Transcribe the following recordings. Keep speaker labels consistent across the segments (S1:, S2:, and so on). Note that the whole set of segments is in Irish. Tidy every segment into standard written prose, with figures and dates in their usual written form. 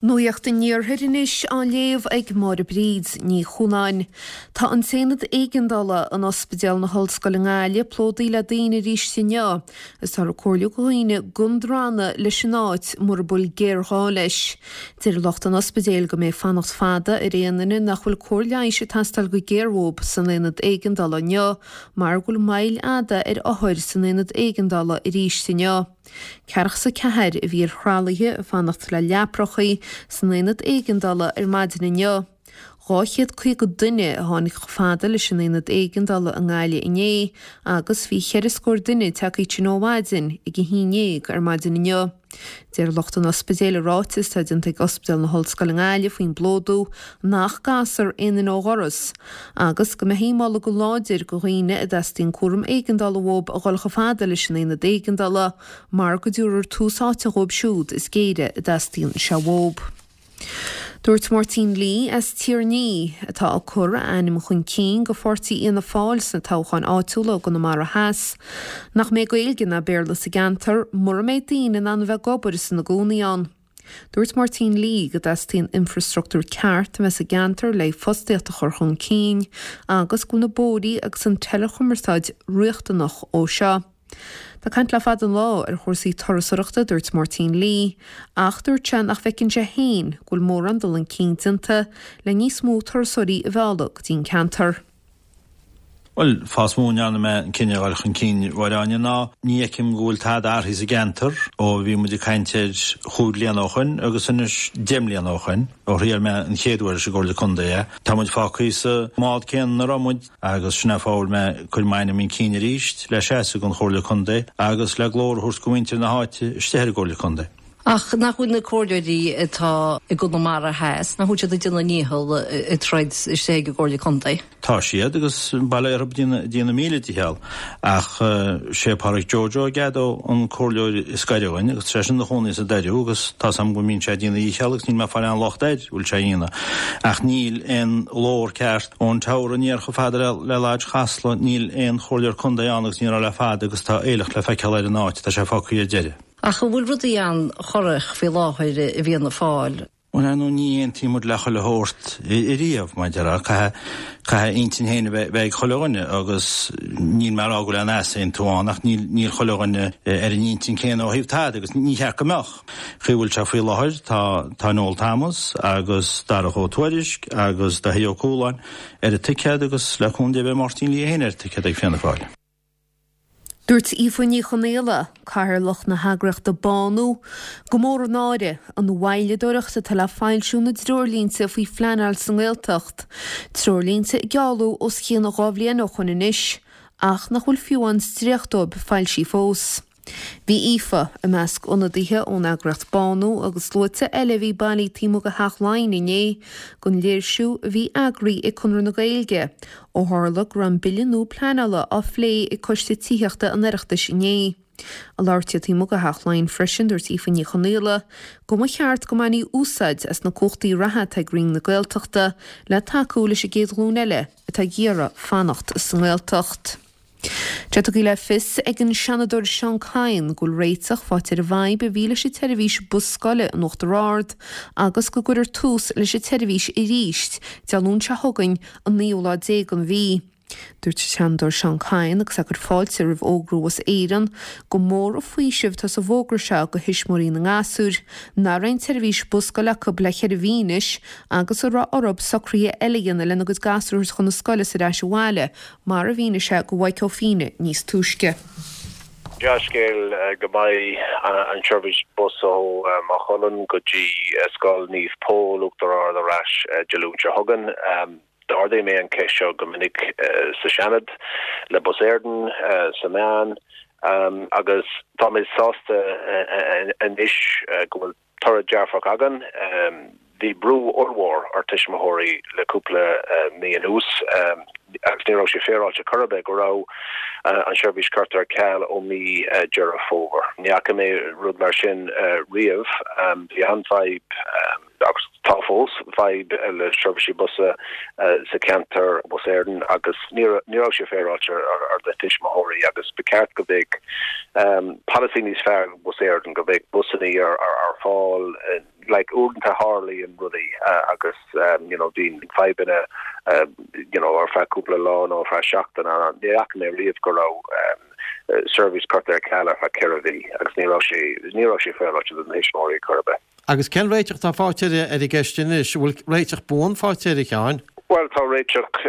S1: Nuacht an Iarthair anois á léamh ag Máire Bríd Ní Chualáin. Tá an t-aonad éigeandála in Ospidéal na hOllscoile i nGaillimh plódaithe le daoine arís inniu agus táthar ag comhairliú do dhaoine gan drannadh leis an áit mura bhfuil géarghá leis. Deir lucht an ospidéil go mbeidh fanacht fada ar aon duine nach bhfuil cóir leighis ag teastáil go géar uathu san aonad éigeandála inniu mar go bhfuil moill fhada ar othair san aonad éigeandála arís inniu. 44 a bhí ar thralaithe ag fanacht le leaprachaí san aonad éigeandála ar maidin inniu. 250 duine a tháinig chomh fada leis an aonad éigeandála i nGaillimh inné agus bhí cheithre scór duine tagtha tinn ó mhaidin ag a haon dhéag ar maidin inniu. Deir lucht an ospidéil i ráiteas atá déanta ag Ospidéal na hOllscoile i nGaillimh faoin bplódú nach gcasfar aon duine ó dhoras agus go mbeifí ag moladh go láidir do dhaoine a dteastaíonn cúram éigeandála uathu a dhul chomh fada leis an aonad éigeandála mar go dtabharfar tús áite dhóibh siúd is géire a dteastaíonn sé uathu. Dúirt Máirtín Lee as Tír an Fhia, atá ag cur a ainm chun cinn do pháirtí Fhianna Fáil sna toghcháin áitiúla i gConamara Theas, nach mbeidh Gaeilge ná Béarla sa gceantar mura mbeidh daoine in ann a bheith ag obair is ina gcónaí ann. Dúirt Máirtín Lee go dteastaíonn infreastruchtúr ceart a bheith sa gceantar le fostaíocht a chur chun cinn agus go bhfuil na bóithrí agus an teileachumarsáid riachtanach dó seo. Tá caint le fada an lá ar chúrsaí turasóireachta, dúirt Máirtín Lee, ach dúirt sé nach bhfeiceann sé féin go bhfuil mórán dul chun cinn déanta le níos mó turasóirí a mhealladh go dtí an ceantar.
S2: Bhuel, fáth is mó a ndearna mé an cinneadh a dhul chun cinn, a Mháire Áine, ná ní fheicim go bhfuil tada athraithe sa gceantar ó bhí muid ag caint air chúig bliana ó shoin agus anois deich mbliana ó shoin, ó thriail mé an chéad uair leis an gComhairle Contae é. Tá muid fágtha sa mbád céanna ina raibh muid. Agus sin é an fáth a bhfuil mé ag cur m'ainm chun cinn arís le seasamh don Chomhairle Contae agus le glór a thabhairt do mhuintir na háite istigh ar an gComhairle Contae.
S3: Ach nach bhfuil na comhairleoirí atá i gConamara Theas, nach bhfuil siad ag déanamh a ndícheall ag troid istigh ag an gComhairle Contae?
S2: Tá siad, agus bail orthu ag déanamh a míle dícheall. Ach sé Pádraic Joe Joe Gado an comhairleoir is gaire dhúinn agus tá seisean ina chónaí sa Doiriú agus tá's agam go mbíonn sé ag déanamh a dhícheall agus níl mé ag fáil aon locht air go bhfuil sé a dhéanamh. Ach níl aon ghlór ceart ón Teamhair aniar chomh fada le Lodge Chasla, níl aon chomhairleoir contae ann agus ní raibh le fada agus tá aoileach le feiceáil ar an áit, tá sé fágtha ar deireadh.
S3: Ach an bhfuil rudaí an-chorrach faoi láthair i bhFianna Fáil?
S2: Bhuel, ar ndóigh, ní aontaíonn muid le chuile shórt ariamh, mar a déarfá. Caithfidh, caithfidh intinn féin a bheith ag chuile dhuine agus níl mé ag rá go bhfuil aon easaontú ann ach níl, níl chuile dhuine ar an intinn céanna ó thaobh tada agus ní cheart go mbeadh. Chaoi a bhfuil sé faoi láthair, tá, tá Noel Thomas agus Darach Ó Tuairisg agus Daithí Ó Cualáin ar an ticéad agus le cúnamh Dé beidh Máirtín Lee féin ar an ticéad ag Fianna Fáil.
S1: Dúirt Aoife Ní Chonaola, Cathaoirleach na heagraíochta Bánú, gur mór an náire an mhoilleadóireacht atá le foilsiú na dtreoirlínte faoi phleanáil sa nGaeltacht, treoirlínte a gealladh os cionn 2 bhliain ó shoin anois ach nach bhfuil fiú amháin dréacht dóibh foilsithe fós. Bhí Aoife i measc ionadaithe ón eagraíocht Bánú agus sluaite eile a bhí bailithe taobh amuigh de Theach Laighean inné don léirsiú a bhí eagraithe ag Conradh na Gaeilge ó tharla go raibh an bille nua pleanála á phlé ag Coiste Tithíochta an Oireachtais inné. Ag labhairt di taobh amuigh de Theach Laighean freisin dúirt Aoife Ní Chonaola go mba cheart go mbainfí úsáid as na cumhachtaí reatha atá ag Roinn na Gaeltachta le tacú leis an gcéad ghlúin eile atá ag iarraidh fanacht sa nGaeltacht. Tá tugtha le fios ag an Seanadóir Seán Kyne go bhfuil réiteach faighte ar an bhfadhb a bhí leis an tseirbhís bus scoile in Uachtar Ard agus go gcuirfear tús leis an tseirbhís arís Dé Luain seo chugainn, an naoú lá déag den mhí. Dúirt an Seanadóir Seán Kyne agus é ag cur fáilte roimh fhógra Bhus Éireann gur mór an faoiseamh atá sa bhfógra seo do thuismitheoirí na ngasúr nach raibh aon tseirbhís bus scoile acu le ceithre mhí anois agus a raibh orthu socruithe eile a dhéanamh lena gcuid gasúr a thabhairt chun na scoile is ar ais abhaile mar a mhínigh sé do Mhaidhc Ó Fiaich níos túisce.
S4: Dea-scéal go mbeidh an tseirbhís bus ó Maigh Cuilinn go dtí Scoil Naomh Pól, Uachtar Ard ar ais Dé Luain seo chugainn. D'ardaigh mé an cheist seo go minic sa Seanad, le Bus Éireann, sna meáin agus tá mé sásta anois go bhfuil toradh dearfach againn. Bhí brú ollmhór ar tuismitheoirí le cúpla mí anuas agus ní raibh sé féaráilte chor ar bith go raibh an seirbhís curtha ar ceal ó mí Deireadh Fómhair. Ní fhaca mé rud mar sin riamh. Bhí an-fhadhb. agus tá fós, fadhb le seirbhísí busa sa cheantar, Bus Éireann, agus ní raibh sé féaráilte ar na tuismitheoirí agus ba cheart go mbeadh polasaí níos fearr ag Bus Éireann, go mbeadh busanna ar fáil, like uaireanta tharlaíonn rudaí agus you know bíonn fadhbanna you know ar feadh cúpla lá nó ar feadh seachtaine ní fhaca mé riamh go raibh seirbhís curtha ar ceal ar feadh 4 mhí agus ní raibh sé ní raibh sé féaráilte do na thuismitheoirí chor ar bith.
S5: Agus cén réiteach atá faighte ar an gceist anois? An bhfuil réiteach buan faighte air, a Sheáin?
S4: Bhuel, tá réiteach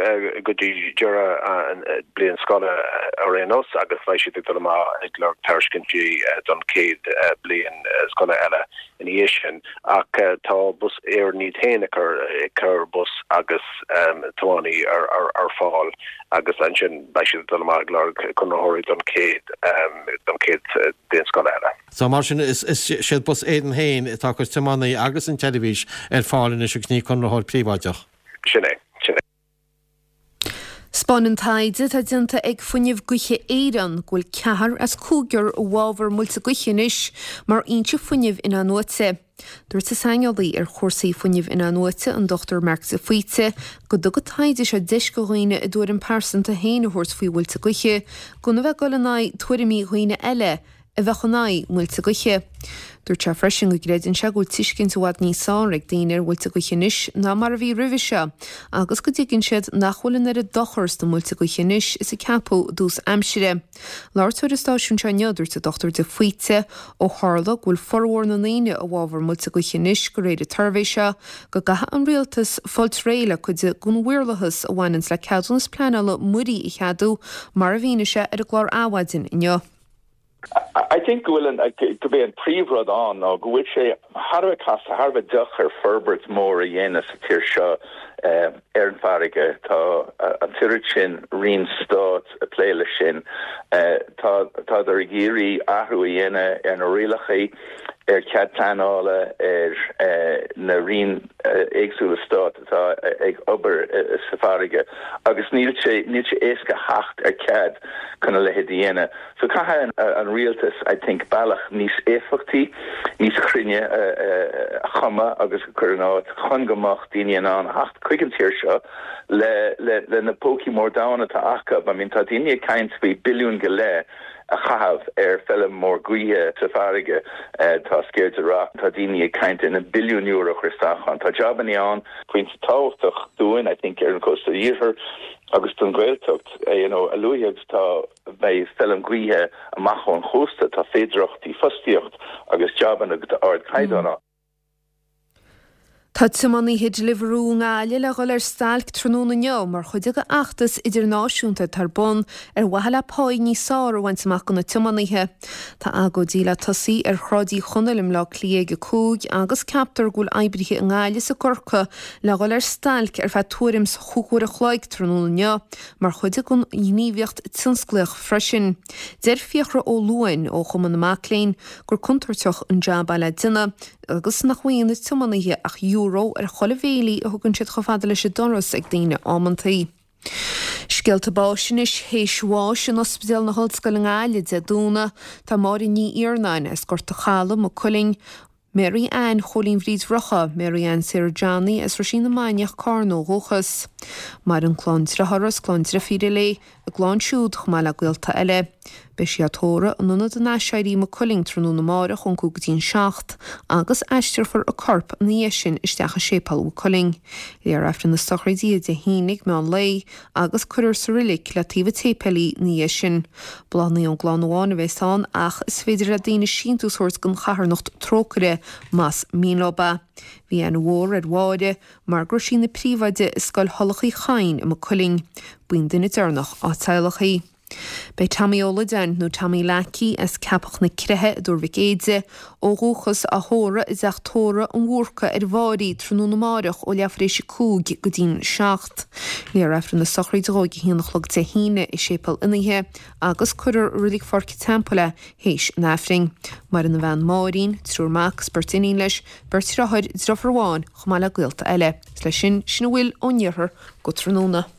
S4: go dtí deireadh an bliain scoile ar aon nós agus beidh siad ag dul amach ag lorg tairiscintí don chéad bliain scoile eile ina dhiaidh sin. Ach tá Bus Éireann iad féin ag cur bus agus tiománaí ar fáil agus ansin beidh siad ag dul amach ag lorg conraitheoirí don chéad don chéad bhliain scoile eile.
S5: So mar sin is iad Bus Éireann féin atá ag cur tiománaí agus an tseirbhís ar fáil anois agus ní conraitheoir príobháideach.
S4: Sin é. Sin é.
S1: 'Spáineann taighde atá déanta ag Fuinneamh Gaoithe Éireann go bhfuil ceathrar as cúigear i bhfabhar muilte gaoithe anois mar fhoinse fuinnimh in-athnuaite. Dúirt an saineolaí ar chúrsaí fuinnimh in-athnuaite, an Dr Mark de Faoite, go dtug an taighde seo deis do dhaoine a dtuairim pearsanta féin a thabhairt faoi mhuilte gaoithe gan a bheith ag dul in aghaidh tuairimí dhaoine eile a bheadh in aghaidh muilte gaoithe. Dúirt sé freisin go gcreideann sé go bhfuil tuiscint i bhfad níos fearr ag daoine ar mhuilte gaoithe anois ná mar a bhí roimhe seo agus go dtuigeann siad nach bhfuil an oiread dochar sna muilte gaoithe anois is a ceapadh i dtús aimsire. Labhairt ar an stáisiún seo inniu, dúirt an Dr de Faoite, ó tharla go bhfuil formhór na ndaoine i bhfabhar muilte gaoithe anois de réir an tsuirbhé seo, go gcaithfidh an rialtas fáilt réidh le cuid den mhaorlathas a bhaineanns le ceadúnas pleanála muirí a cheadú, mar a mhínigh sé ar an gclár Adhmhaidin inniu.
S6: I think go bhfuil an, gurb é an príomhrud ann ná go bhfuil sé thar a bheith casta, thar a bheith deacair forbairt mór a dhéanamh sa tír seo ar an bhfarraige. Tá an t-oiread sin roinn stáit ag plé leis sin. Tá, tádar ag iarraidh athrú a dhéanamh ar na rialacha, ar chead pleanála, ar na roinn éagsúla stáit atá ag obair sa bhfarraige agus níl sé, níl sé éasca theacht ar chead chun a leithéid a dhéanamh. So caithfidh an rialtas, I think, bealach níos éifeachtaí, níos cruinne a chumadh agus a chur in áit chun go mbeadh daoine in ann theacht chuig an tír seo le le na pócaí mór donn atá acu. I mean tá daoine ag caint faoi billiún go leith a chaitheamh ar feilm mór gaoithe sa bhfarraige. Tá Sceirde Rock, tá daoine ag caint ar na billiúin euro a chur isteach ann. Tá jabannaí ann. Pointe tábhachtach dúinn, I think, ar an chósta iarthair agus don Ghaeltacht, you know, a luaithe agus atá Beidh feilm gaoithe amach ón chósta, tá féidearthachtaí fostaíocht agus jabanna d'ardchaighdeán ann.
S1: Tá tiománaithe Deliveroo i nGaillimh le dhul ar stailc tráthnóna inniu mar chuid de fheachtas idirnáisiúnta atá ar bun ar mhaithe le páí níos fearr a bhaint amach do na tiománaithe. Tá agóidí le tosaí ar Shráid Uí Chonaill i mBleá Cliath ag 5 agus ceaptar go bhfuil oibrithe i nGaillimh is i gCorcaigh le dhul ar stailc ar feadh tuairim 's chúig uair a chloig tráthnóna inniu mar chuid den ghníomhaíocht tionsclaíoch freisin. Deir Fiachra Ó Luain ó Chumann na Mac Léinn gur contúirteach an jab é le déanamh agus nach bhfaigheann na tiománaithe ach euro ar chuile bhéilí a thugann siad chomh fada leis an doras ag daoine amantaí. Scéalta báis anois théis bháis in Ospidéal na hOllscoile i nGaillimh Dé Domhnaigh tá Máire Ní Iarnáin as Gort a' Chalaidh, Maigh Cuilinn, Mary Ann Chóilín Bhríd Rocca, Mary Ann Sarah Johnny as Roisín na Mainiach, Carna ó dhúchas. Maireann clann driothára is clann drifíre léi, a gclann siúd chomh maith le gaolta eile. Beidh sí á tórramh in Ionad an Aiséirí, Maigh Cuilinn tráthnóna amáireach ón 5 go dtí an 7 agus aistreofar a corp ina dhiaidh sin isteach i Séipéal Mhaigh Cuilinn. Léifear Aifreann na sochraide Dé hAoine ag meán lae agus cuirfear sa roilig le taobh an tséipéil í ina dhiaidh sin. Bláthanna ón gclann amháin a bheas ann ach is féidir le daoine síntiús a thabhairt don charthanacht Trócaire más mian leo é. Bhí aithne mhór ar Mháire mar go raibh sí ina príomhoide i Scoil Thulach Uí Chadhain i Maigh Cuilinn. B'í an duine deireanach dá teaghlach í. Beidh Tommy Ó Loideáin, nó Tommy Leacaí, as Ceapach na Creiche i dTuar Mhic Éide, ó dhúchas, á thórramh i dteach tórraimh an Bhúrcaigh ar an bhFáirí tráthnóna amáireach ó leathuair éis a 5 go dtí'n 7. Léifear Aifreann na sochraide dhó ag a haon a chlog Dé hAoine i Séipéal Fhionnaithe agus cuirfear i Reilig Pháirc an Teampaill é théis an Aifrinn. Maireann a bhean Máirín, triúr mac is beirt iníon leis, beirt dheartháir, deirfiúr amháin, chomh maith le gaolta eile. Is leis sin, sin a bhfuil ón iarthar go tráthnóna.